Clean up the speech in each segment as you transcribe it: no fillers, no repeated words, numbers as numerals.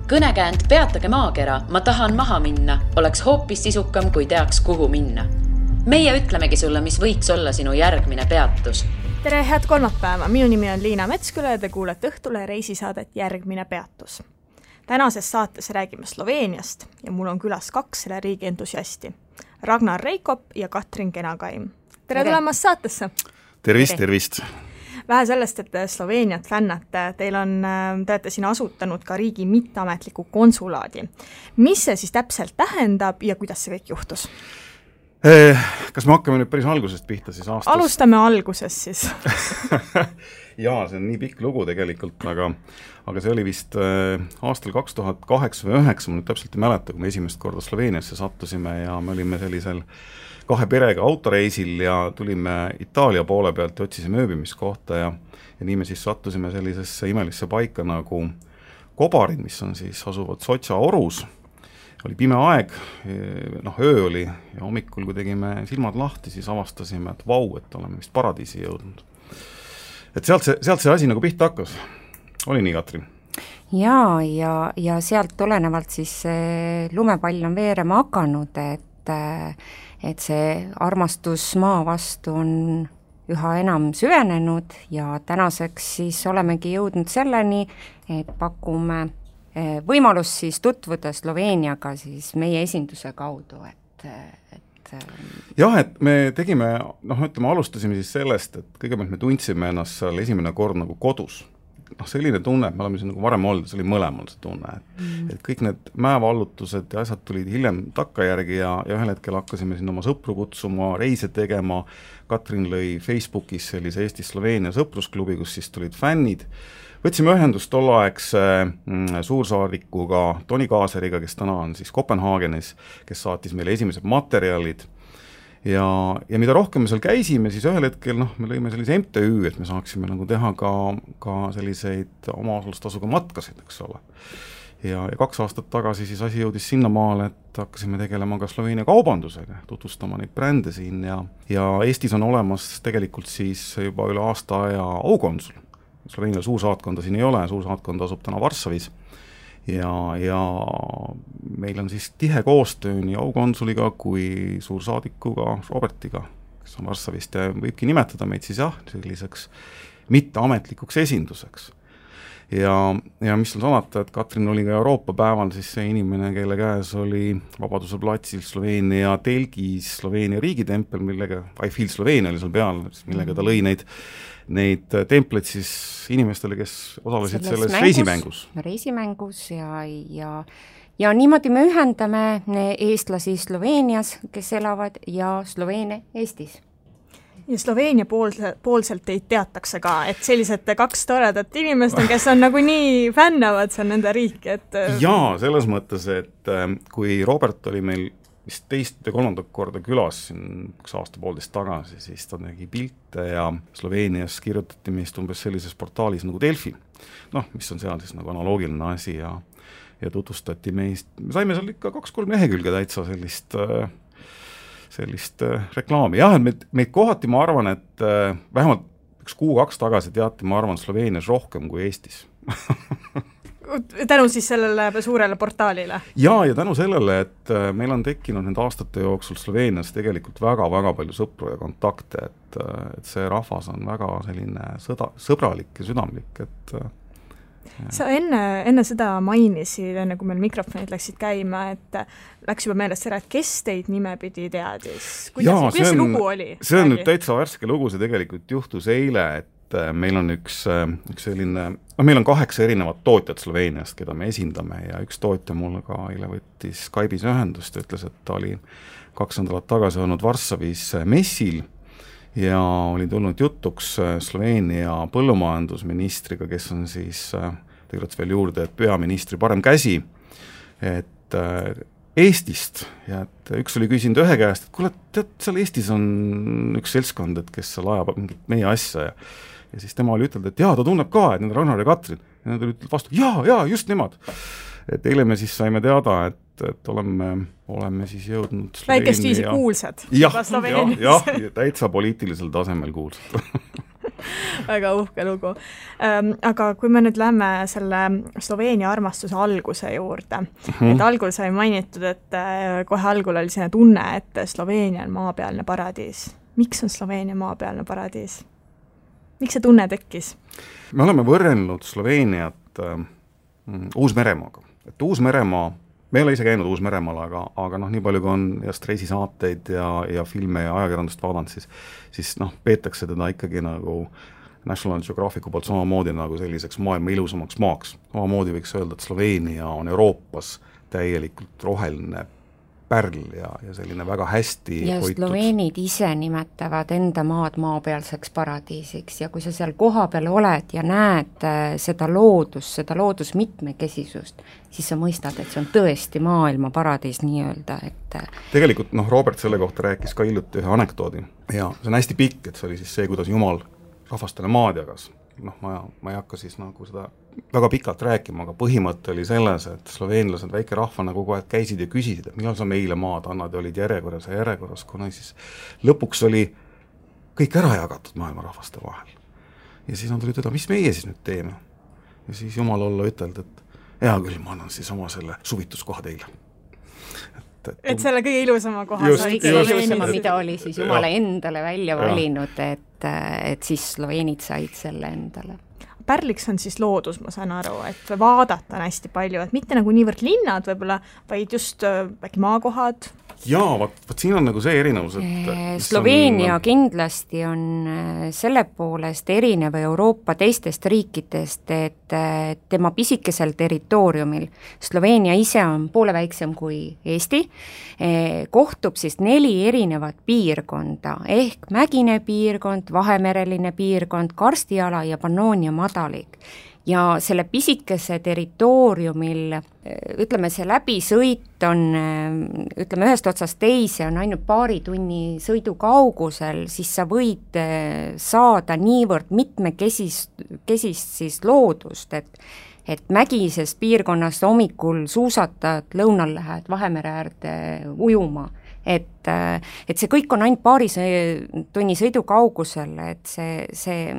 Kõnekäänd peatage maakera, ma tahan maha minna, oleks hoopis sisukam, kui teaks, kuhu minna. Meie ütlemegi sulle, mis võiks olla sinu järgmine peatus. Tere, head kolmapäeva! Minu nimi on Liina Metsküla ja te kuulete Õhtule reisisaadet Järgmine peatus. Tänases saates räägime Sloveeniast ja mul on külas 2 selle riigi entusiasti. Ragnar Reikop ja Katrin Kenakaim. Tere tulemast saatesse! Tervist! Vähe sellest, et Sloveeniat fännate, te olete siin asutanud ka riigi mitteametliku konsulaadi. Mis see siis täpselt tähendab ja kuidas see kõik juhtus? Kas me hakkame nüüd päris algusest pihta siis aastas? Alustame algusest siis. Jaa, see on nii pikk lugu tegelikult, aga see oli vist aastal 2008 või 2009, ma nüüd täpselt ei mäleta, kui me esimest korda Sloveeniasse sattusime ja me olime sellisel 2 perega autoreisil ja tulime Itaalia poole pealt ja otsisime ööbimiskohta ja nii me siis sattusime sellisesse imelisse paika nagu Kobarid, mis on siis asuvad Sotša orus. Oli pime aeg, öö oli ja hommikul, kui tegime silmad lahti, siis avastasime, et vau, et oleme vist paradiisi jõudnud. Et sealt see asi nagu pihta hakkas. Oli nii, Katrin? Jaa, ja sealt tulenevalt siis lumepall on veerema hakanud, et see armastus maa vastu on üha enam süvenenud ja tänaseks siis olemegi jõudnud selleni, et pakume võimalust siis tutvuda Sloveeniaga siis meie esinduse kaudu, Jah, et me tegime, alustasime siis sellest, et kõigepealt me tundsime ennast seal esimene kord nagu kodus. Selline tunne, et me oleme siin nagu varem olnud, see oli mõlemal see tunne, et kõik need mäevallutused ja asjad tulid hiljem takkajärgi ja ühel hetkel hakkasime siin oma sõpru kutsuma, reise tegema. Katrin lõi Facebookis sellise Eesti-Sloveenia sõprusklubi, kus siis tulid fännid. Võtsime ühendust tolleaegse suursaadikuga Toni Kaaseriga, kes täna on siis Kopenhaagenis, kes saatis meile esimesed materjalid. Ja mida rohkem me seal käisime, siis ühel hetkel me lõime sellise MTÜ, et me saaksime nagu teha ka selliseid omaosalustasuga matkasid, eks ole. Ja 2 aastat tagasi siis asi jõudis sinnamaale, et hakkasime tegelema ka Sloveenia kaubandusega, tutvustama neid brände siin ja Eestis on olemas tegelikult siis juba üle aasta aja aukonsul. Sloveenia suursaatkonda siin ei ole, suursaatkond asub täna Varssavis ja meil on siis tihe koostöö nii aukonsuliga kui suursaadikuga Robertiga, kes on Varssavist ja võibki nimetada meid siis selliseks mitteametlikuks esinduseks. Ja mis on salata, et Katrin oli ka Euroopa päeval siis see inimene, kelle käes oli Vabaduse platsil Sloveenia telgis Sloveenia riigitempel, millega I Feel Sloveenia oli seal peal, millega ta lõi neid templeid siis inimestele, kes osalesid selles reisimängus ja niimoodi me ühendame eestlasi Sloveenias, kes elavad ja Sloveene Eestis. Ja Sloveenia poolselt teid teatakse ka, et sellised 2 toredat inimest on, kes on nagu nii fännavad seal nende riiki, et Jaa, selles mõttes, et kui Robert oli meil vist 2. ja 3. korda külas 1 aasta-poolteist tagasi, siis ta tegi pilte ja Sloveenias kirjutati meist umbes sellises portaalis nagu Delfi, mis on seal siis nagu analoogiline asi ja tutvustati meist, me saime seal ikka 2-3 lehekülge täitsa sellist reklaami. Jah, et meid kohati, ma arvan, et vähemalt 1 kuu-2 tagasi teati, ma arvan, Sloveenias rohkem kui Eestis. Tänu siis sellele suurele portaalile? Ja tänu sellele, et meil on tekkinud nende aastate jooksul Sloveenias tegelikult väga-väga palju sõpru ja kontakte, et see rahvas on väga selline sõbralik ja südamlik, et Sa enne seda mainisid, enne kui meil mikrofonid läksid käima, et läks juba meelest ära, et kes teid nimepidi teadis? Kuidas see lugu oli? See on nüüd täitsa värske lugu, see tegelikult juhtus eile, et meil on üks selline, meil on 8 erinevat tootjat Sloveeniast, keda me esindame ja üks tootja mulle ka eile võttis Skype'is ühendust ja ütles, et ta oli 2 nädalat tagasi olnud Varssavis messil ja oli tulnud jutuks Sloveenia põllumajandusministriga, kes on siis, tegelikult veel juurde, et peaministri parem käsi, et Eestist ja et üks oli küsinud ühe käest, et kuule, tead, seal Eestis on üks seltskond, et kes seal ajab mingit meie asja ja siis tema oli ütelnud, et jaa, ta tunneb ka, et need on Ragnar ja Katrin ja nad olid vastu, jaa, just nemad. Et eile me siis saime teada, et oleme siis jõudnud väikest viisi kuulsad. Jah, täitsa poliitilisel tasemel kuulsad. väga uhke lugu. Aga kui me nüüd lähme selle Sloveenia armastuse alguse juurde, et algul sai mainitud, et kohe algul oli selline tunne, et Sloveenia on maapealne paradiis. Miks on Sloveenia maapealne paradiis? Miks see tunne tekkis? Me oleme võrrelnud Sloveeniat Uus-Meremaaga. Et Uus-Meremaa, me ei ole ise käinud Uus-Meremaal, aga nii palju kui on reisisaateid ja filme ja ajakirjandust vaadanud, siis peetakse teda ikkagi nagu National Geographicu poolt samamoodi nagu selliseks maailma ilusamaks maaks. Samamoodi võiks öelda, et Sloveenia on Euroopas täielikult roheline pärl ja selline väga hästi ja hoitud. Sloveenid ise nimetavad enda maad maapealseks paradiisiks ja kui sa seal kohapeal oled ja näed seda loodusmitmekesisust, siis sa mõistad, et see on tõesti maailma paradiis nii-öelda, et tegelikult Robert selle kohta rääkis ka hiljuti ühe anekdoodi ja see on hästi pikk, et see oli siis see, kuidas Jumal rahvastele maad jagas. Ma ei hakka siis nagu seda väga pikalt rääkima, aga põhimõte oli selles, et sloveenlased väike rahvana kogu aeg käisid ja küsisid, et millal sa meile maad annad ja olid järjekorras, kuna siis lõpuks oli kõik ära jagatud maailma rahvaste vahel. Ja siis nad olid ütelda, mis meie siis nüüd teeme? Ja siis Jumal olla ütelda, et hea küll, ma annan siis oma selle suvituskoha teile. Et selle kõige ilusama koha ilusama, mida oli siis Jumala endale välja valinud, et siis sloveenid said selle endale. Pärliks on siis loodus, ma saan aru, et vaadata on hästi palju, et mitte nagu niivõrd linnad võib-olla, vaid just äkki maakohad. Jaa, vaat siin on nagu see erinevus, et Sloveenia kindlasti on selle poolest erinev Euroopa teistest riikidest, et tema pisikesel territooriumil, Sloveenia ise on poole väiksem kui Eesti, kohtub siis 4 erinevat piirkonda, ehk mägine piirkond, vahemereline piirkond, karstiala ja Pannoonia madalik. Ja selle pisikese territooriumil, ütleme, see läbisõit on, ütleme, ühest otsast teise on ainult paari tunni sõidu kaugusel, siis sa võid saada niivõrd mitmekesist siis loodust, et mägises piirkonnas hommikul suusatad, lõunal lähed Vahemere äärde ujuma. Et see kõik on ainult paari tunni sõidu kaugusel, et see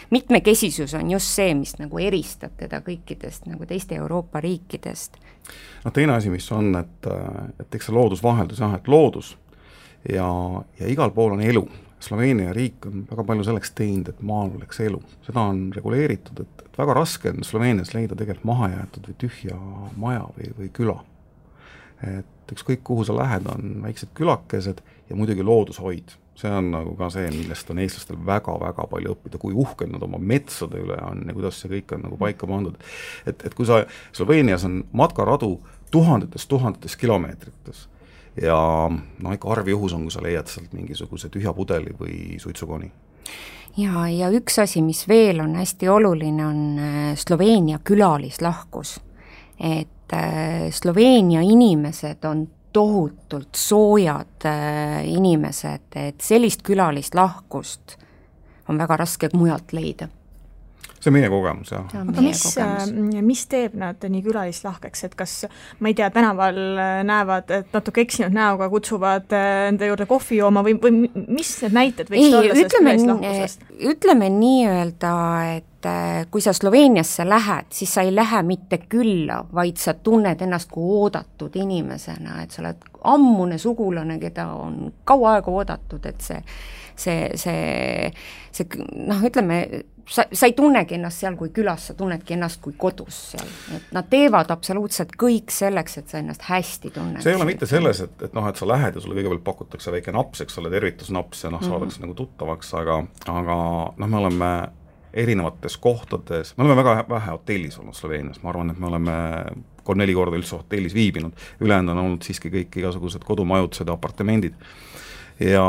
mitmekesisus on just see, mis nagu eristab teda kõikidest nagu teiste Euroopa riikidest. Teine asi, mis on, et eks see loodusvaheldus, et loodus ja igal pool on elu. Sloveenia riik on väga palju selleks teinud, et maal oleks elu. Seda on reguleeritud, et väga raske on Sloveenias leida tegelikult mahajäetud või tühja maja või küla. Et ükskõik kuhu sa lähed, on väiksed külakesed ja muidugi loodushoid. See on nagu ka see, millest on eestlastel väga-väga palju õppida, kui uhked nad oma metsade üle on ja kuidas see kõik on nagu paika pandud. Et kui sa Sloveenias on matkaradu tuhandetes kilomeetrites ja ikka arvjuhus on, kui sa leiad sealt mingisuguse tühja pudeli või suitsukoni. Ja üks asi, mis veel on hästi oluline, on Sloveenia külalislahkus. Et Sloveenia inimesed on tohutult soojad inimesed, et sellist külalislahkust on väga raske mujalt leida. See on meie kogemus, jah. Aga mis teeb nad nii külalislahkeks, et kas, ma ei tea, tänaval näevad, et natuke eksinud näoga kutsuvad enda juurde kohvi jooma või mis need näited võiks olla sellest külalislahkusest? Ütleme nii-öelda, et kui sa Sloveeniasse lähed, siis sa ei lähe mitte külla, vaid sa tunned ennast kui oodatud inimesena, et sa oled ammune sugulane, keda on kaua aega oodatud, et ütleme, sa ei tunnegi ennast seal kui külas, sa tunnedki ennast kui kodus seal. Et nad teevad absoluutselt kõik selleks, et sa ennast hästi tunned. See ei ole mitte selles, et sa lähed ja sulle kõigepealt pakutakse väike naps, eks ole, tervitusnaps ja saadakse nagu tuttavaks, aga me oleme erinevates kohtades, me oleme väga vähe hotellis olnud Sloveenias, ma arvan, et me oleme 3-4 korda üldse hotellis viibinud, ülejäänud on olnud siiski kõik igasugused kodumajutused ja apartamendid ja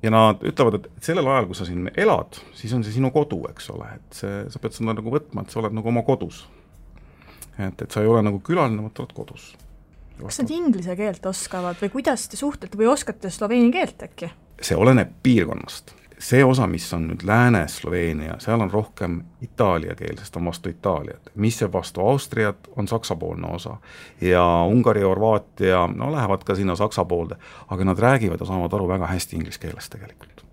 nad ütlevad, et sellel ajal, kui sa siin elad, siis on see sinu kodu, eks ole, et sa pead seda nagu võtma, et sa oled nagu oma kodus. Et sa ei ole nagu külaline, vaid oled kodus. Kas nad inglise keelt oskavad või kuidas te suhtlete või oskate sloveeni keelt äkki? See oleneb piirkonnast. See osa, mis on nüüd Lääne-Sloveenia, seal on rohkem itaalia keel, sest on vastu Itaaliat. Mis see vastu Austriat, on saksapoolne osa. Ja Ungari ja Horvaatia, lähevad ka sinna saksa poolde, aga nad räägivad ja saavad aru väga hästi inglise keelest tegelikult.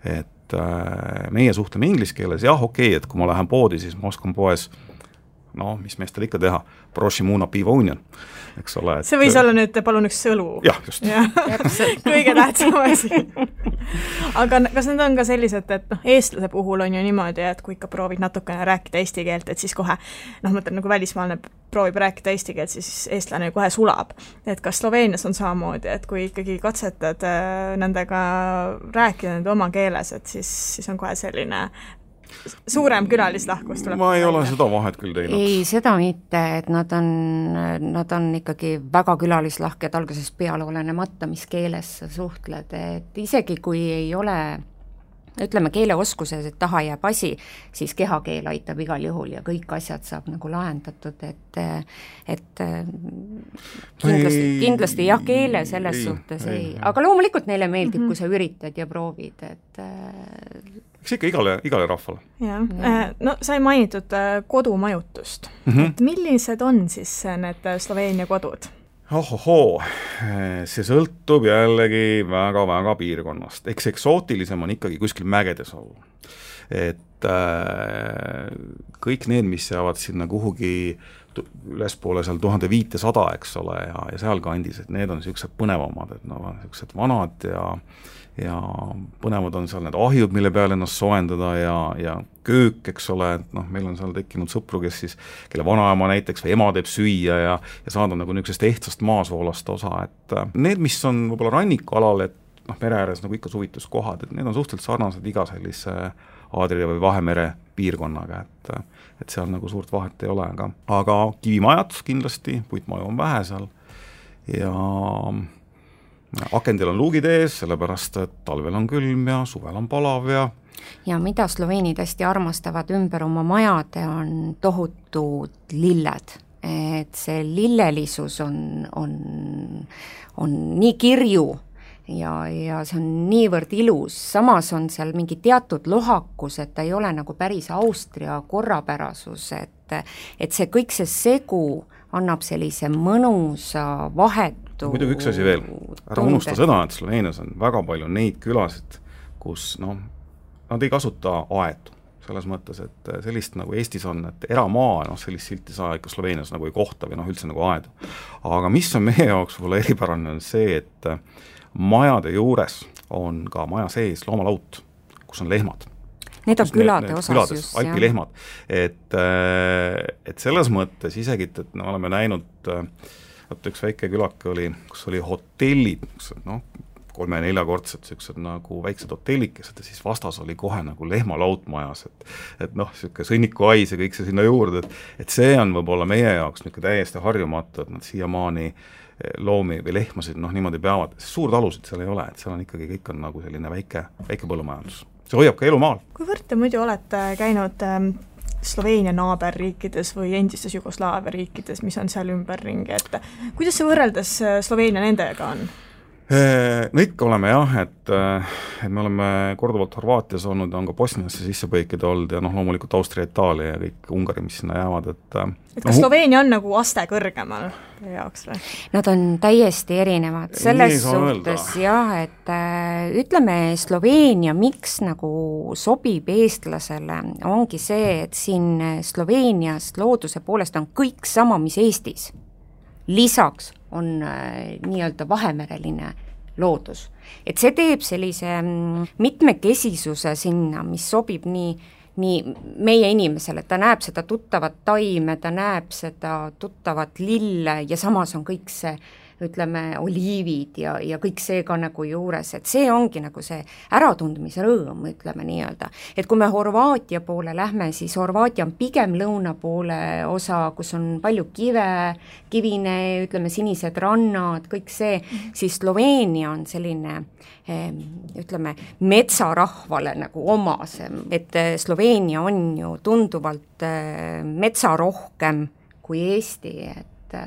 et meie suhtleme inglise keeles, jah, okei, et kui ma lähen poodi, siis ma oskan poes mis meestel ikka teha, prošimuna piiva union, eks ole. See võis olla nüüd, palun üks sõlu. Jah, just. Kõige tähtsam asi. Aga kas need on ka sellised, et eestlase puhul on ju niimoodi, et kui ikka proovid natukene rääkida eesti keelt, et siis kohe, mõtlen nagu välismaalne proovib rääkida eesti keelt, siis eestlane kohe sulab. Et kas Sloveenias on samamoodi, et kui ikkagi katsetad nendega rääkida nende oma keeles, et siis on kohe selline suurem külalislahkus tuleb. Ma ei ole seda vahet küll teinud. Ei, seda mitte, et nad on ikkagi väga külalislahked algusest peale olenemata, mis keeles sa suhtled, et isegi kui ei ole, ütleme, keeleoskuses, et taha jääb asi, siis kehakeel aitab igal juhul ja kõik asjad saab nagu lahendatud, et kindlasti jah, keele selles suhtes ei. Aga loomulikult neile meeldib, kui sa üritad ja proovid, et eks ikka igale rahvale. No sai mainitud kodumajutust. Et millised on siis need Sloveenia kodud? See sõltub jällegi väga-väga piirkonnast. Eks eksootilisem on ikkagi kuskil mägedes olla. Et kõik need, mis jäävad sinna kuhugi ülespoole seal 1500, eks ole, ja seal kandis, et need on niisugused põnevamad, et niisugused vanad ja põnevad on seal need ahjud, mille peale ennast soojendada ja köök, eks ole, et meil on seal tekkinud sõpru, kelle vanaema näiteks või ema teeb süüa ja saada nagu niisugusest ehtsast maasoolast osa, et need, mis on võib-olla rannikualal, et mere ääres nagu ikka suvituskohad, et need on suhteliselt sarnased iga sellise Aadria või Vahemere piirkonnaga, et seal nagu suurt vahet ei ole, aga kivimajad kindlasti, puitmaju on vähe seal ja akendel on luugid ees, sellepärast, et talvel on külm ja suvel on palav ja mida sloveenid hästi armastavad ümber oma majade, on tohutud lilled. Et see lillelisus on nii kirju ja see on niivõrd ilus, samas on seal mingi teatud lohakus, et ta ei ole nagu päris Austria korrapärasus, et see kõik see segu annab sellise mõnusa vahetu muidugi üks asi veel, ära unusta seda, et Sloveenias on väga palju neid külasid, kus nad ei kasuta aedu, selles mõttes, et sellist nagu Eestis on, et eramaa, sellist silti saa ikka Sloveenias nagu ei kohta või üldse nagu aedu. Aga mis on meie jaoks võib-olla eripärane, on see, et majade juures on ka maja sees loomalaut, kus on lehmad. Need on külade osas just. Alpilehmad. Et selles mõttes isegi, et me oleme näinud, üks väike külake oli, kus oli hotellid, 3-4-kordsed sellised nagu väiksed hotellikesed ja siis vastas oli kohe nagu lehmalaut majas, et selline sõnnikuais ja kõik see sinna juurde, et see on võib-olla meie jaoks täiesti harjumatu, et nad siiamaani loomi või lehmasid niimoodi peavad, suur talusid seal ei ole, et seal on ikkagi kõik on nagu selline väike põllumajandus. See hoiab ka elu maal. Kuivõrd te muidu olete käinud Sloveenia naaberriikides või endistes Jugoslaavia riikides, mis on seal ümberringi, et kuidas see võrreldes Sloveenia nendega on? No ikka oleme jah, et me oleme korduvalt Horvaatias olnud ja on ka Bosniasse sisse põikida olnud ja loomulikult Austria, Itaalia ja kõik Ungari, mis sinna jäävad, et kas Sloveenia on nagu aste kõrgemal jaoks või? Nad on täiesti erinevad selles suhtes jah, et ütleme Sloveenia, miks nagu sobib eestlasele, ongi see, et siin Sloveenias looduse poolest on kõik sama, mis Eestis. Lisaks on nii-öelda vahemereline loodus. Et see teeb sellise mitmekesisuse sinna, mis sobib nii meie inimesele, ta näeb seda tuttavat taime, ta näeb seda tuttavat lille ja samas on kõik see, ütleme, oliivid ja kõik see ka nagu juures, et see ongi nagu see äratundmisrõõm, ütleme nii-öelda. Et kui me Horvaatia poole lähme, siis Horvaatia on pigem lõuna poole osa, kus on palju kivine, ütleme, sinised rannad, kõik see, siis Sloveenia on selline, ütleme, metsarahvale nagu omasem, et Sloveenia on ju tunduvalt metsarohkem kui Eesti, et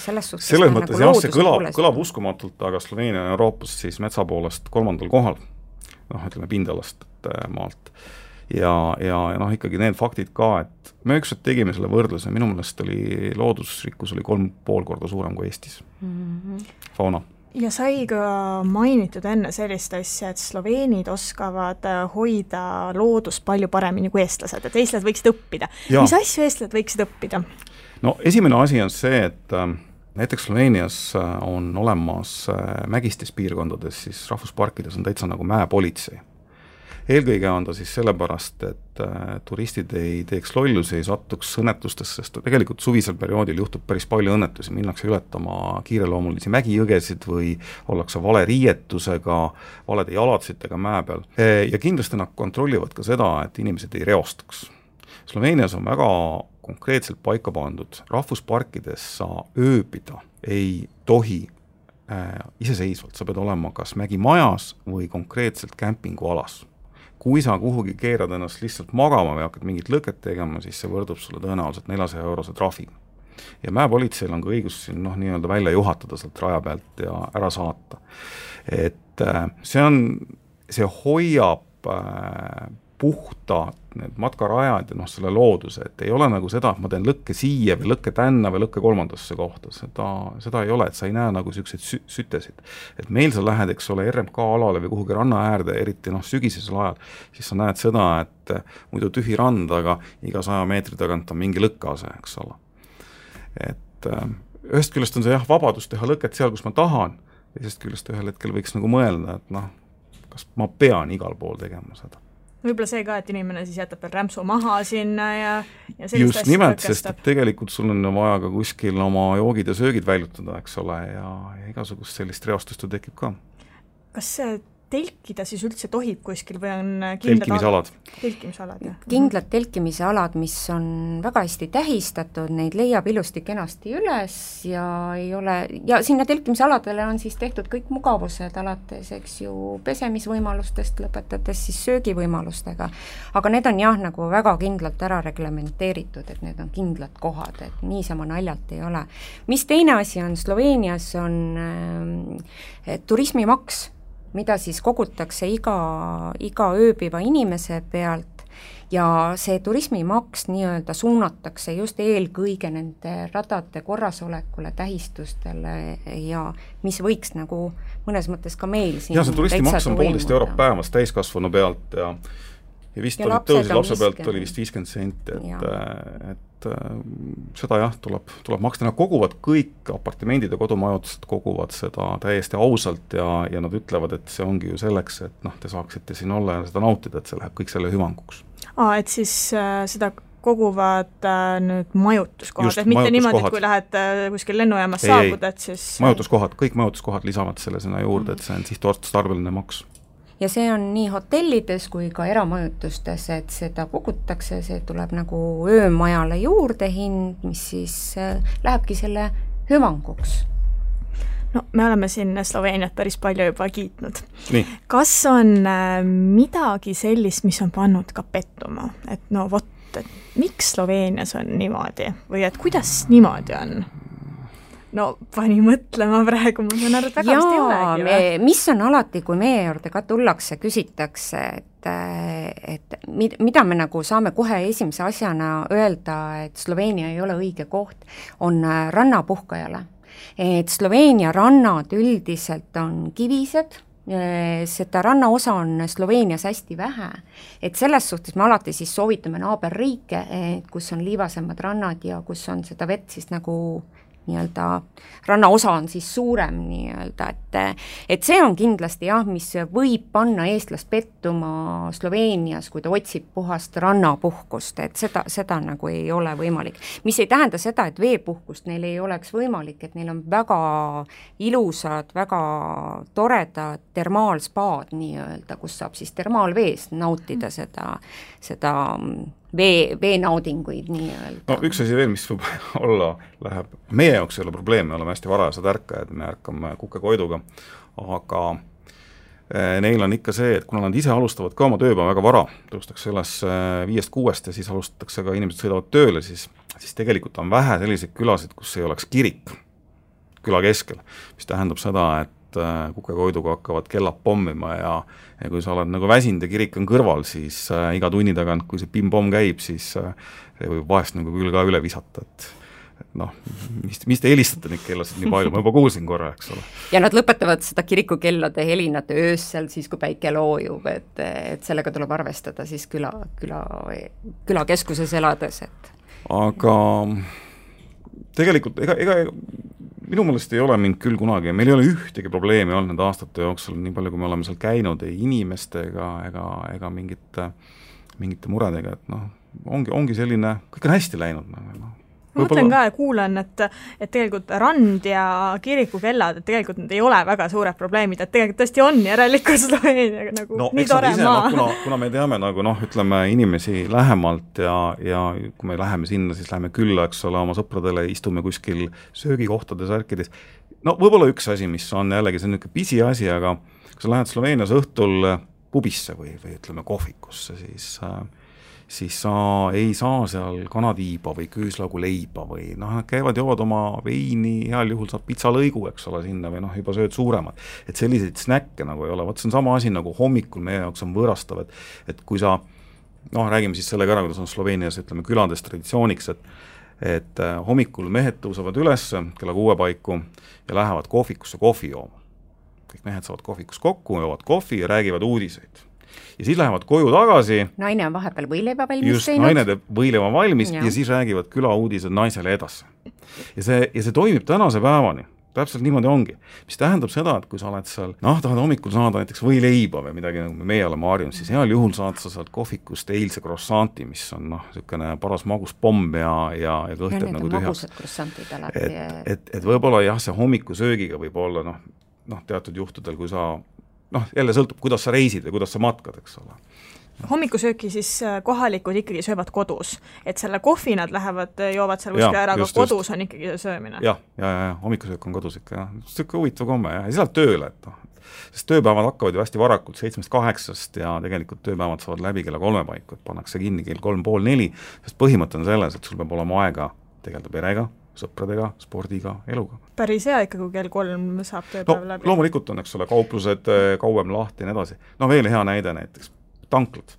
selles suhtes selles mõttes nagu jah, see kõlab uskumatult, aga Sloveenia on Euroopas siis metsa poolest 3. kohal, ütleme pindalast maalt. Ja ikkagi need faktid ka, et me ükskord tegime selle võrdluse, minu meelest oli loodusrikkus oli 3,5 korda suurem kui Eestis. Fauna. ja sai ka mainitud enne sellist asja, et sloveenid oskavad hoida loodust palju paremini kui eestlased, et eestlased võiksid õppida. Mis asju eestlased võiksid õppida? No esimene asi on see, et näiteks Sloveenias on olemas mägistes piirkondades, siis rahvusparkides on täitsa nagu mäepolitsei. Eelkõige on ta siis sellepärast, et turistid ei teeks lollusi, ei satuks õnnetustesse, sest tegelikult suvisel perioodil juhtub päris palju õnnetusi, minnakse ületama kiireloomulisi mägijõgesid või ollakse vale riietusega, valede jalatsitega mäe peal. Ja kindlasti nad kontrollivad ka seda, et inimesed ei reostaks. Sloveenias on väga konkreetselt paika pandud, rahvusparkides sa ööbida ei tohi iseseisvalt, sa pead olema kas mägimajas või konkreetselt kämpingualas. Kui sa kuhugi keerad ennast lihtsalt magama või hakkad mingit lõket tegema, siis see võrdub sulle tõenäoliselt 400-eurose trahviga. Ja mäepolitseil on ka õigus siin nii-öelda välja juhatada sealt raja pealt ja ära saata. Et see hoiab puhta need matkarajad ja selle looduse, et ei ole nagu seda, et ma teen lõkke siia või lõkke tänna või lõkke kolmandasse kohta, seda ei ole, et sa ei näe nagu selliseid sütesid. Et meil sa lähed, eks ole, RMK alale või kuhugi ranna äärde, eriti sügisesel ajal, siis sa näed seda, et muidu tühi rand, aga iga 100 meetri tagant on mingi lõkkease, eks ole. Et ühest küljest on see vabadus teha lõket seal, kus ma tahan, teisest küljest ühel hetkel võiks nagu mõelda, et kas ma pean igal pool tegema seda. Võib-olla see ka, et inimene siis jätab veel rämpsu maha sinna ja just nimelt, sest tegelikult sul on vaja ka kuskil oma joogid ja söögid väljutada, eks ole, ja igasugust sellist reostust ju tekib ka. Kas see telkida siis üldse tohib kuskil või on telkimisalad? Telkimisalad, jah. Kindlad telkimisalad, mis on väga hästi tähistatud, neid leiab ilusti kenasti üles ja ei ole, ja sinna telkimisaladele on siis tehtud kõik mugavused alates, eks ju, pesemisvõimalustest lõpetades siis söögivõimalustega, aga need on jah, nagu väga kindlalt ära reglementeeritud, et need on kindlad kohad, et niisama naljalt ei ole. Mis teine asi on, Sloveenias on turismimaks, mida siis kogutakse iga ööbiva inimese pealt ja see turismimaks nii-öelda suunatakse just eelkõige nende radade korrasolekule, tähistustele ja mis võiks nagu mõnes mõttes ka meil siin see turismimaks on 1,5 eurot päevas täiskasvanu pealt ja vist ja tõusis lapse pealt oli vist 50 senti, et seda jah, tuleb maksta, nad koguvad kõik apartimendid ja kodumajutused koguvad seda täiesti ausalt ja nad ütlevad, et see ongi ju selleks, et te saaksite siin olla ja seda nautida, et see läheb kõik selle hüvanguks. Et siis seda koguvad nüüd majutuskohad, et mitte niimoodi, et kui lähed kuskil lennujaamas saabud, et siis majutuskohad, kõik majutuskohad lisavad selle sinna juurde, et see on sihtotstarbeline maks. Ja see on nii hotellides kui ka eramajutustes, et seda kogutakse, see tuleb nagu öömajale juurde hind, mis siis lähebki selle hüvanguks. No, me oleme siin Sloveeniat päris palju juba kiitnud. Nii. Kas on midagi sellist, mis on pannud ka pettuma? Et et miks Sloveenias on niimoodi? Või et kuidas niimoodi on? No pani mõtlema praegu, ma saan aru, et väga vist ei olegi. Mis on alati, kui meie juurde ka tullakse, küsitakse, et mida me nagu saame kohe esimese asjana öelda, et Sloveenia ei ole õige koht, on rannapuhkajale. Et Sloveenia rannad üldiselt on kivised, seda rannaosa on Sloveenias hästi vähe, et selles suhtes me alati siis soovitame naaberriike, kus on liivasemad rannad ja kus on seda vett siis nagu nii-öelda rannaosa on siis suurem nii-öelda, et see on kindlasti jah, mis võib panna eestlast pettuma Sloveenias, kui ta otsib puhast rannapuhkust, et seda nagu ei ole võimalik. Mis ei tähenda seda, et veepuhkust neil ei oleks võimalik, et neil on väga ilusad, väga toredad termaalspaad nii-öelda, kus saab siis termaalvees nautida seda veenaudinguid nii-öelda. No üks asi veel, mis võib olla, läheb, meie jaoks ei ole probleem, me oleme hästi varajased ärkajad, me ärkame kukekoiduga, aga neil on ikka see, et kuna nad ise alustavad ka oma tööpäeva väga vara, tõustakse üles 5-6 ja siis alustatakse ka, inimesed sõidavad tööle, siis tegelikult on vähe selliseid külasid, kus ei oleks kirik küla keskel, mis tähendab seda, et kukekoiduga hakkavad kellad pommima ja kui sa oled nagu väsinud ja kirik on kõrval, siis iga tunni tagant, kui see pim-pomm käib, siis see võib vahest nagu küll ka üle visata, et noh, mis te helistate neid kellasid nii palju, ma juba kuulsin korra, eks ole. Ja nad lõpetavad seda kirikukellade helinat öösel siis, kui päike loojub, et sellega tuleb arvestada siis külakeskuses elades, et aga tegelikult ega minu meelest ei ole mind küll kunagi, meil ei ole ühtegi probleemi olnud nende aastate jooksul, nii palju kui me oleme seal käinud, ei inimestega ega mingite muredega, et noh, ongi selline, kõik on hästi läinud. Ma mõtlen ka ja kuulen, et tegelikult rand ja kirikukellad, et tegelikult need ei ole väga suured probleemid, et tegelikult tõesti on järelikult Sloveeniaga nagu nii tore maa. Kuna me teame nagu ütleme inimesi lähemalt ja kui me läheme sinna, siis läheme külla, eks ole, oma sõpradele, istume kuskil söögikohtades, ärkides. No võib-olla üks asi, mis on jällegi, see on niisugune pisi asi, aga kui sa lähed Sloveenias õhtul pubisse või ütleme kohvikusse, siis sa ei saa seal kanatiiba või küüslaugu leiba või nad käivad, joovad oma veini, heal juhul saab pitsalõigu, eks ole, sinna või juba sööd suuremad. Et selliseid snäkke nagu ei ole, see on sama asi nagu hommikul meie jaoks on võõrastav, et kui sa, räägime siis sellega ära, kuidas on Sloveenias, ütleme, külades traditsiooniks, et hommikul mehed tõusevad üles kella 6 paiku ja lähevad kohvikusse kohvi jooma. Kõik mehed saavad kohvikus kokku, joovad kohvi ja räägivad uudiseid. Ja siis lähevad koju tagasi. Naine on vahepeal võileiba valmis just, teinud. Naine teeb võileiba valmis ja siis räägivad külauudised naisele edasi. Ja see toimib tänase päevani. Täpselt niimoodi ongi. Mis tähendab seda, et kui sa oled seal, tahad hommikul saada näiteks võileiba või midagi, nagu meie oleme harjunud, siis heal juhul saad sa sealt kohvikust eilse krossanti, mis on niisugune paras maguspomm ja kõhted nagu tühjaks. Et võib-olla jah, see hommikusöögiga võib olla teatud juhtudel, kui sa jälle sõltub, kuidas sa reisid või kuidas sa matkad, eks ole. Hommikusööki siis kohalikud ikkagi söövad kodus, et selle kohvi nad joovad seal kuskil ära, aga kodus on ikkagi söömine. Ja, hommikusöök on kodus ikka, jah. Siuke huvitav komme, jah. Ja sealt tööle, sest tööpäevad hakkavad ju hästi varakult 7-8 ja tegelikult tööpäevad saavad läbi kella 3 paiku, et pannakse kinni kell 3:30, sest põhimõte on selles, et sul peab olema aega tegeleda perega, sõpradega, spordiga, eluga. Päris hea ikka, kui kell 3 saab tööpäev läbi. Loomulikult on, eks ole, kauplused kauem lahti ja nii edasi. Veel hea näide näiteks, tanklad.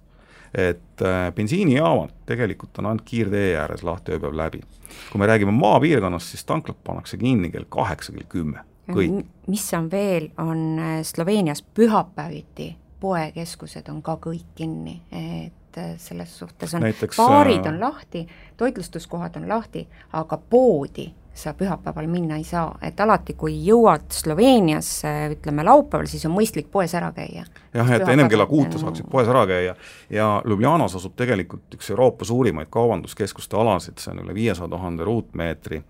Et bensiinijaamad tegelikult on ainult kiirtee ääres lahti ööpäev läbi. Kui me räägime maapiirkonnast, siis tanklad pannakse kinni kell 8, kell 10. Kõik. Mis on veel, on Sloveenias pühapäeviti poekeskused on ka kõik kinni, et selles suhtes on näiteks, baarid on lahti, toitlustuskohad on lahti, aga poodi sa pühapäeval minna ei saa, et alati kui jõuad Sloveeniasse, ütleme laupäeval, siis on mõistlik poes ära käia. Jah, et ennem kella 6 saaksid poes ära käia ja Ljubljanas asub tegelikult üks Euroopa suurimaid kaubanduskeskuste alasid, see on üle 500 000 ruutmeetri,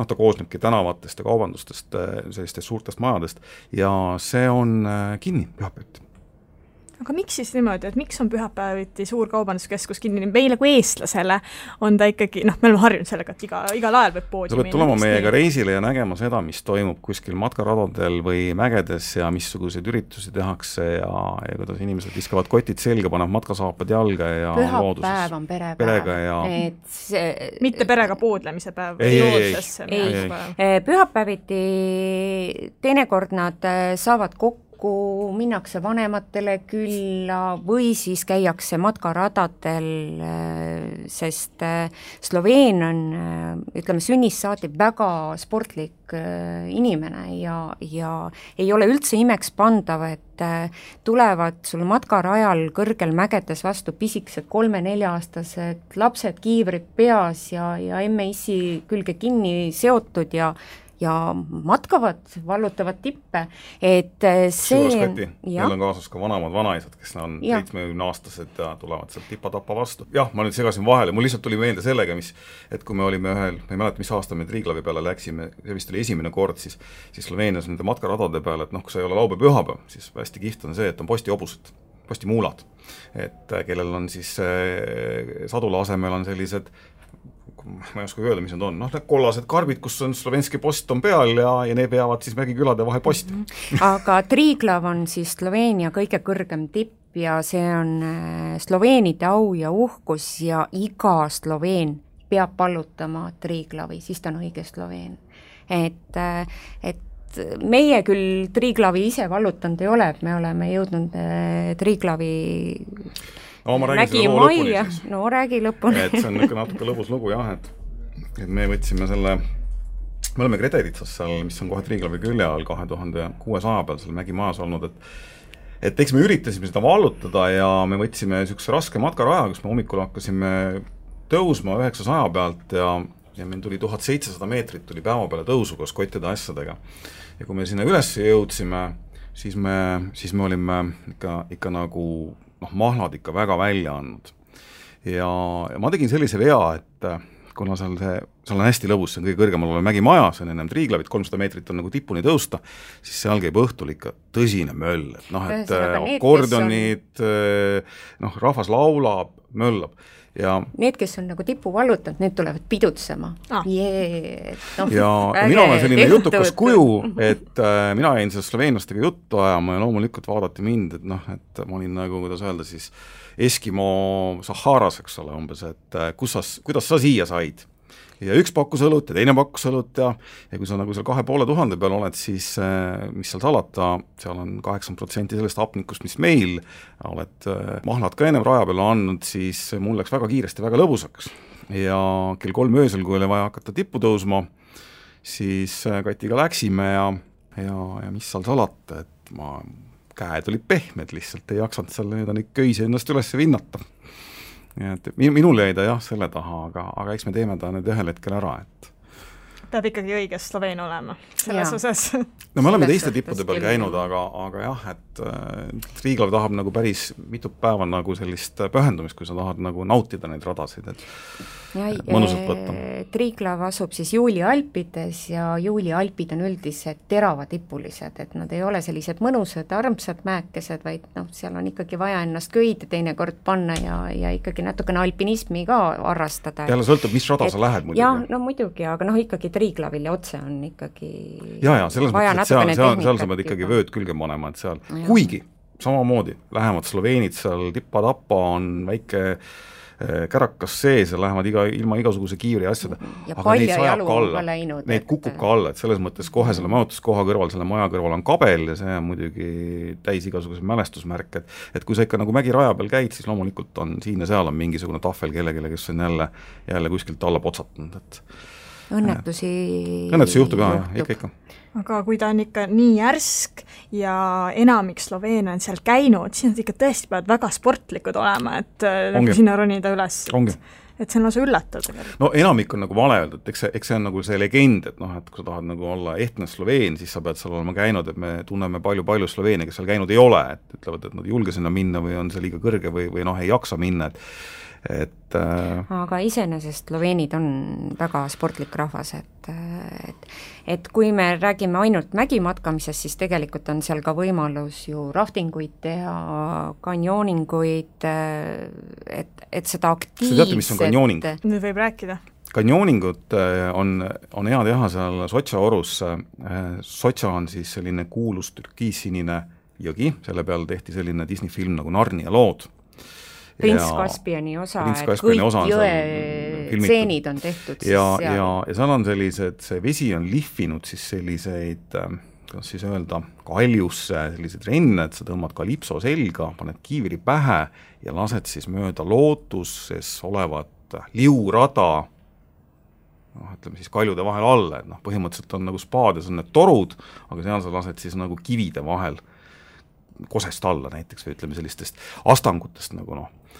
ta koosnebki tänavatest ja kaubandustest, sellistest suurtest majadest ja see on kinni pühapäeviti. Aga miks siis niimoodi, et miks on pühapäeviti suur kaubanduskeskus kinni? Meile kui eestlasele on ta ikkagi, me oleme harjunud sellega, et igal ajal võib poodi minna. Sa pead tulema meiega reisile ja nägema seda, mis toimub kuskil matkaradadel või mägedes ja missuguseid üritusi tehakse ja kuidas inimesed viskavad kotid selga, panevad matkasaapad jalga ja pühapäev on perepäev. Ja... mitte perega poodlemise päev. Ei. Pühapäeviti teinekord nad saavad kokku, minnakse vanematele külla või siis käiakse matkaradadel, sest Sloveen on, ütleme, sünnist saati väga sportlik inimene ja ei ole üldse imeks pandav, et tulevad sul matkarajal kõrgel mägedes vastu pisikesed 3-4-aastased lapsed, kiivrid peas ja emme-issi külge kinni seotud ja matkavad, vallutavad tippe, et see... Meil on kaasas ka vanemad vanaisad, kes on 70-aastased ja tulevad sealt tipa-tapa vastu. Jah, ma nüüd segasin vahele, mul lihtsalt tuli meelde sellega, et kui me olime ühel, ma ei mäleta, mis aasta me Triglavi peale läksime, see vist oli esimene kord, siis Sloveenias nende matkaradade peale, et kui sa ei ole laupäev pühapäev, siis hästi kihvt on see, et on postihobused, postimuulad, et kellel on siis sadula asemel on sellised ma ei oska öelda, mis need on, need kollased karbid, kus on slovenski post on peal ja need peavad siis mägikülade vahel posti. Aga Triglav on siis Sloveenia kõige kõrgem tipp ja see on sloveenide au ja uhkus ja iga sloveen peab pallutama Triglavi, siis ta on õige sloveen. Et meie küll Triglavi ise vallutanud ei ole, et me oleme jõudnud Triglavi ma räägin seda loo lõpuni siis. Räägi lõpuni. Et see on natuke lõbus lugu, jah, et et me võtsime selle, me oleme Gredelitsas seal, mis on kohe Triiglavi külje all 2600 peal seal mägimajas olnud, et eks me üritasime seda vallutada ja me võtsime niisuguse raske matkaraja, kus me hommikul hakkasime tõusma 900 pealt ja meil tuli 1700 meetrit tuli päeva peale tõusu koos kottide asjadega. Ja kui me sinna üles jõudsime, siis me olime ikka nagu mahlad ikka väga välja andnud. Ja ma tegin sellise vea, et kuna seal on hästi lõbus, see on kõige kõrgemal olev mägimaja, see on ennem Triiglavit, 300 meetrit on nagu tipuni tõusta, siis seal käib õhtul ikka tõsine möll, et akordionid, rahvas laulab, möllab. Ja need, kes on nagu tipu vallutanud, need tulevad pidutsema. Ja mina olen selline jutukas kuju, et mina jäin seal sloveenlastega juttu ajama ja loomulikult vaadati mind, et ma olin nagu, kuidas öelda siis, Eskimo Saharas, eks ole, umbes, et kuidas sa siia said. Ja üks pakkus õlut ja teine pakkus õlut ja kui sa nagu seal 2500 peal oled, siis mis seal salata, seal on 80% sellest hapnikust, mis meil oled mahlad ka ennem raja peal andnud, siis mul läks väga kiiresti väga lõbusaks. Ja kell 3 öösel, kui oli vaja hakata tippu tõusma, siis Katiga läksime ja mis seal salata, et käed olid pehmed lihtsalt, ei jaksanud seal neid köisi ennast üles vinnata. Et minul jäi ta jah selle taha, aga eks me teeme ta nüüd ühel hetkel ära, et peab ikkagi õige Sloveen olema selles osas. No me oleme teiste tippude peal käinud, aga jah, et Triiglav tahab nagu päris mitu päeva nagu sellist pühendumist, kui sa tahad nagu nautida neid radasid, et mõnusalt võtta. Triiglav asub siis Juuli Alpides ja Juuli Alpid on üldiselt teravatipulised, et nad ei ole sellised mõnusad, armsad mäekesed, vaid seal on ikkagi vaja ennast köide teinekord panna ja ikkagi natukene alpinismi ka harrastada. Jälle sõltub, mis rada sa lähed muidugi. Jah, no muidugi, aga ikkagi Triiglavil ja otse on ikkagi ja selles mõttes, et seal sa pead ikkagi vööd külge panema, et seal, kuigi samamoodi lähevad sloveenid seal tippa-tappa, on väike kärakas sees ja lähevad ilma igasuguse kiivri asjada, aga neid sajab ka alla, neid kukub ka alla, et selles mõttes kohe selle majutuskoha kõrval, selle maja kõrval on kabel ja see on muidugi täis igasuguse mälestusmärk, et kui sa ikka nagu mägiraja peal käid, siis loomulikult on siin ja seal on mingisugune tahvel kellelegi, kes on jälle kuskilt alla potsatanud, et õnnetusi juhtub ka, ikka. Aga kui ta on ikka nii järsk ja enamik Sloveene on seal käinud, siis nad ikka tõesti peavad väga sportlikud olema, et sinna ronida üles. Et see on lausa üllatav. No enamik on nagu vale öelda, et eks see on nagu see legend, et et kui sa tahad nagu olla ehtne Sloveen, siis sa pead seal olema käinud, et me tunneme palju Sloveene, kes seal käinud ei ole, et ütlevad, et nad ei julge sinna minna või on see liiga kõrge või ei jaksa minna, aga iseenesest sloveenid on väga sportlik rahvas, et kui me räägime ainult mägimatkamisest, siis tegelikult on seal ka võimalus ju raftinguid teha, kanjooninguid, et seda aktiivset... Sa teate, mis on kanjooning? Nüüd võib rääkida. Kanjooningut on hea teha seal Sotša orus. Sotša on siis selline kuulus türkiissinine jõgi, selle peal tehti selline Disney film nagu Narnia lood. Prints Kaspiani osa, et kõik jõe tseenid on tehtud siis seal. Ja seal on sellised, see vesi on lihvinud siis selliseid, kuidas siis öelda, kaljusse sellised renned, sa tõmbad kalipso selga, paned kiivri pähe ja lased siis mööda lootuses olevat liurada, ütleme siis kaljude vahel alla, et põhimõtteliselt on nagu spaades on need torud, aga seal sa lased siis nagu kivide vahel kosest alla näiteks või ütleme sellistest astangutest nagu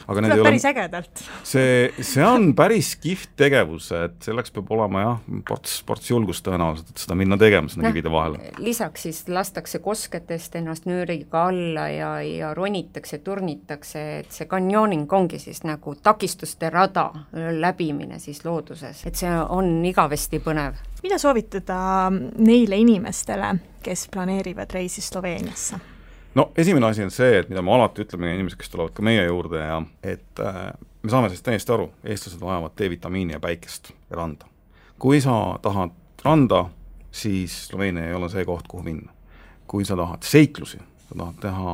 aga tuleb päris ägedalt. See on päris kihvt tegevus, et selleks peab olema ports julgust tõenäoliselt, et seda minna tegema sinna kivide vahele. Lisaks siis lastakse kosketest ennast nööriga alla ja ronitakse, turnitakse, et see kanjooning ongi siis nagu takistuste rada läbimine siis looduses, et see on igavesti põnev. Mida soovitada neile inimestele, kes planeerivad reisi Sloveeniasse? No esimene asi on see, et mida me alati ütleme inimesed, kes tulevad ka meie juurde ja et me saame sellest täiesti aru, eestlased vajavad D-vitamiini ja päikest ja randa. Kui sa tahad randa, siis Sloveenia ei ole see koht, kuhu minna. Kui sa tahad seiklusi, sa tahad teha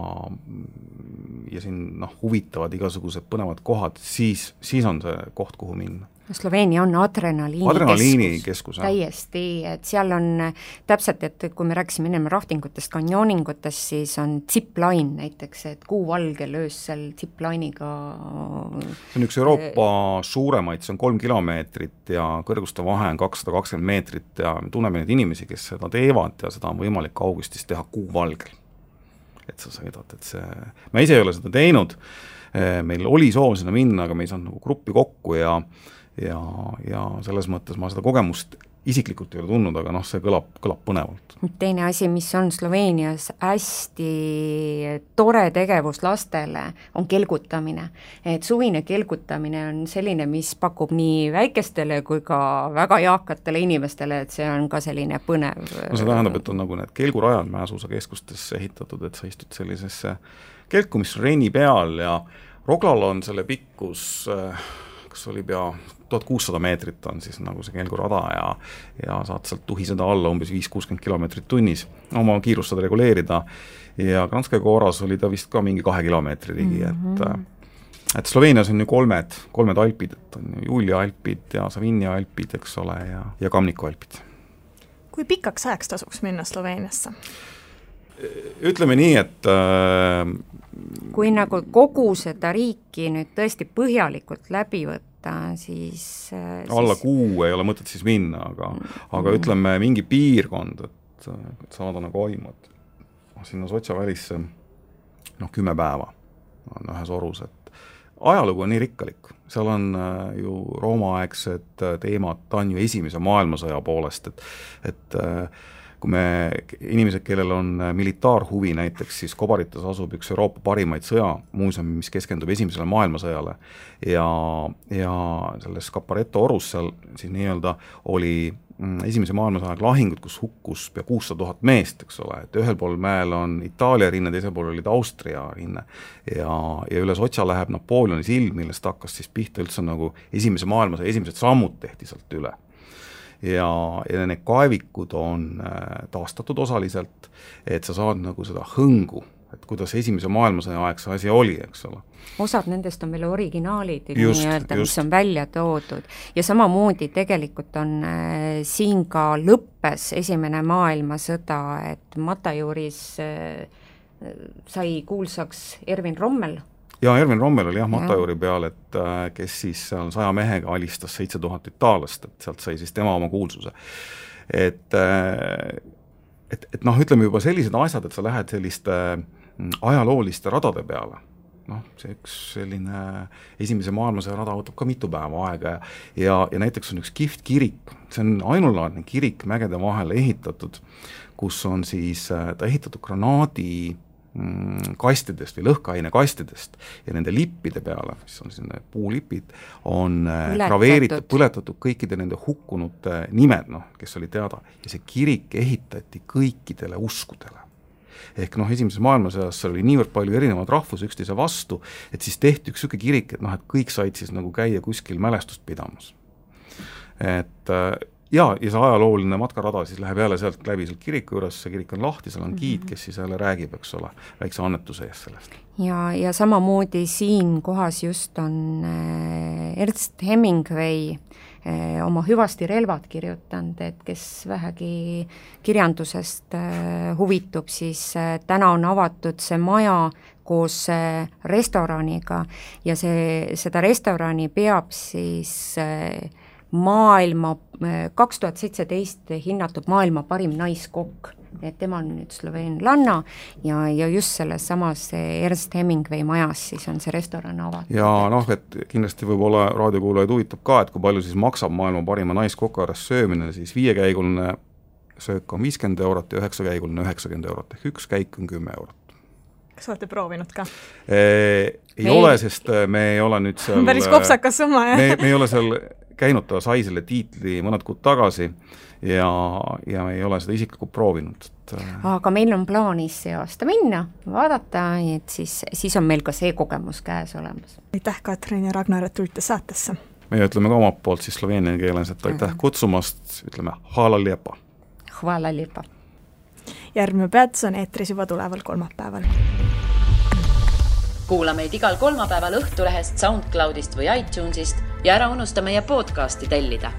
ja siin huvitavad igasugused põnevad kohad, siis on see koht, kuhu minna. Sloveenia on adrenaliinikeskus. Täiesti, et seal on täpselt, et kui me rääkisime ennem raftingutest, kanjooningutest, siis on zipline näiteks, et kuuvalgel öösel zipline'iga. See on üks Euroopa suuremaid, see on 3 kilomeetrit ja kõrguste vahe on 220 meetrit ja me tunneme neid inimesi, kes seda teevad ja seda on võimalik augustis teha kuuvalgel. Et sa sõidad, et see, ma ise ei ole seda teinud, meil oli soov sinna minna, aga me ei saanud nagu gruppi kokku ja selles mõttes ma seda kogemust isiklikult ei ole tundnud, aga see kõlab põnevalt. Teine asi, mis on Sloveenias hästi tore tegevus lastele, on kelgutamine. Et suvine kelgutamine on selline, mis pakub nii väikestele kui ka väga eakatele inimestele, et see on ka selline põnev. No see tähendab, et on nagu need kelgurajad mäesuusakeskustesse ehitatud, et sa istud sellisesse kelku, mis on reini peal ja Roglal on selle pikkus kas oli pea 1600 meetrit on siis nagu see kelgurada ja saad sealt tuhiseda alla umbes 5-60 kilomeetrit tunnis, oma kiirust saad reguleerida ja Kranjska Goras oli ta vist ka mingi 2 kilomeetri ligi, et Sloveenias on ju kolmed alpid, et on Julia alpid ja Savinia alpid, eks ole, ja Kamniku alpid. Kui pikaks ajaks tasuks minna Sloveeniasse? Ütleme nii, et kui nagu kogu seda riiki nüüd tõesti põhjalikult läbi võtta, siis alla kuu ei ole mõtet siis minna, aga ütleme mingi piirkond, et saada nagu aimad. Sinna Sotša välisse 10 päeva on ühes orus, et ajalugu on nii rikkalik. Seal on ju roomaaegsed teemad, ta on ju esimese maailmasõja poolest, et kui inimesed, kellel on militaarhuvi näiteks, siis Kobaritas asub üks Euroopa parimaid sõjamuuseumi, mis keskendub esimesele maailmasõjale ja selles Caparetto orus seal siis nii-öelda oli esimese maailmasõja lahingud, kus hukkus pea 600 000 meest, eks ole, et ühel pool mäel on Itaalia rinne, teisel pool olid Austria rinne ja üle Sotša läheb Napoleoni silm, millest hakkas siis pihta üldse nagu esimese maailmasõja esimesed sammud tehti sealt üle. Ja need kaevikud on taastatud osaliselt, et sa saad nagu seda hõngu, et kuidas esimese maailmasõja aeg see asi oli, eks ole. Osad nendest on veel originaalid, mis on välja toodud. Ja samamoodi tegelikult on siin ka lõppes esimene maailmasõda, et Matajuris sai kuulsaks Ervin Rommel. Ja Ervin Rommel oli Matajuri peal, et kes siis seal 100 mehega alistas 7000 itaalast, et sealt sai siis tema oma kuulsuse. Et ütleme juba sellised asjad, et sa lähed selliste ajalooliste radade peale. See üks selline esimese maailmasõja rada võtab ka mitu päeva aega ja näiteks on üks kihvt kirik, see on ainulaadne kirik mägede vahel ehitatud, kus on siis ta ehitatud granaadi kastidest või lõhkaine kastidest ja nende lippide peale, mis on selline puulipid, on graveeritud, põletatud kõikide nende hukkunute nimed, kes oli teada ja see kirik ehitati kõikidele uskudele. Ehk esimeses maailmasõjas oli niivõrd palju erinevad rahvus üksteise vastu, et siis tehti üks selline kirik, et kõik said siis nagu käia kuskil mälestust pidamas. Ja see ajalooline matkarada siis läheb jälle sealt läbi sealt kiriku juures, see kirik on lahti, seal on giid, kes siis jälle räägib, eks ole, väikse annetuse eest sellest. Ja samamoodi siin kohas just on Ernst Hemingway oma Hüvasti relvad kirjutanud, et kes vähegi kirjandusest huvitub, siis täna on avatud see maja koos restoraniga ja seda restorani peab siis maailma 2017 hinnatud maailma parim naiskokk, et tema on nüüd sloveenlanna ja just selles samas Ernst Hemingway majas siis on see restoran avatud. Ja et kindlasti võib-olla raadiokuulajaid huvitab ka, et kui palju siis maksab maailma parima naiskokares söömine, siis 5-käiguline söök on 50 eurot ja 9-käiguline 90 eurot, ehk üks käik on 10 eurot. Kas olete proovinud ka? Ei ole, sest me ei ole nüüd seal päris kopsakas summa, jah? Me ei ole seal käinud, ta sai selle tiitli mõned kuud tagasi ja me ei ole seda isiklikult proovinud. Aga meil on plaanis see aasta minna, vaadata, et siis on meil ka see kogemus käes olemas. Aitäh, Katrin ja Ragnar, et tulite saatesse. Me ütleme ka omalt poolt siis sloveenia keeles, et aitäh kutsumast, ütleme hvala lijepa. Hvala lijepa. Järgmine peatus on eetris juba tuleval kolmapäeval. Kuula meid igal kolmapäeval Õhtulehest, SoundCloudist või iTunesist ja ära unusta meie podcasti tellida.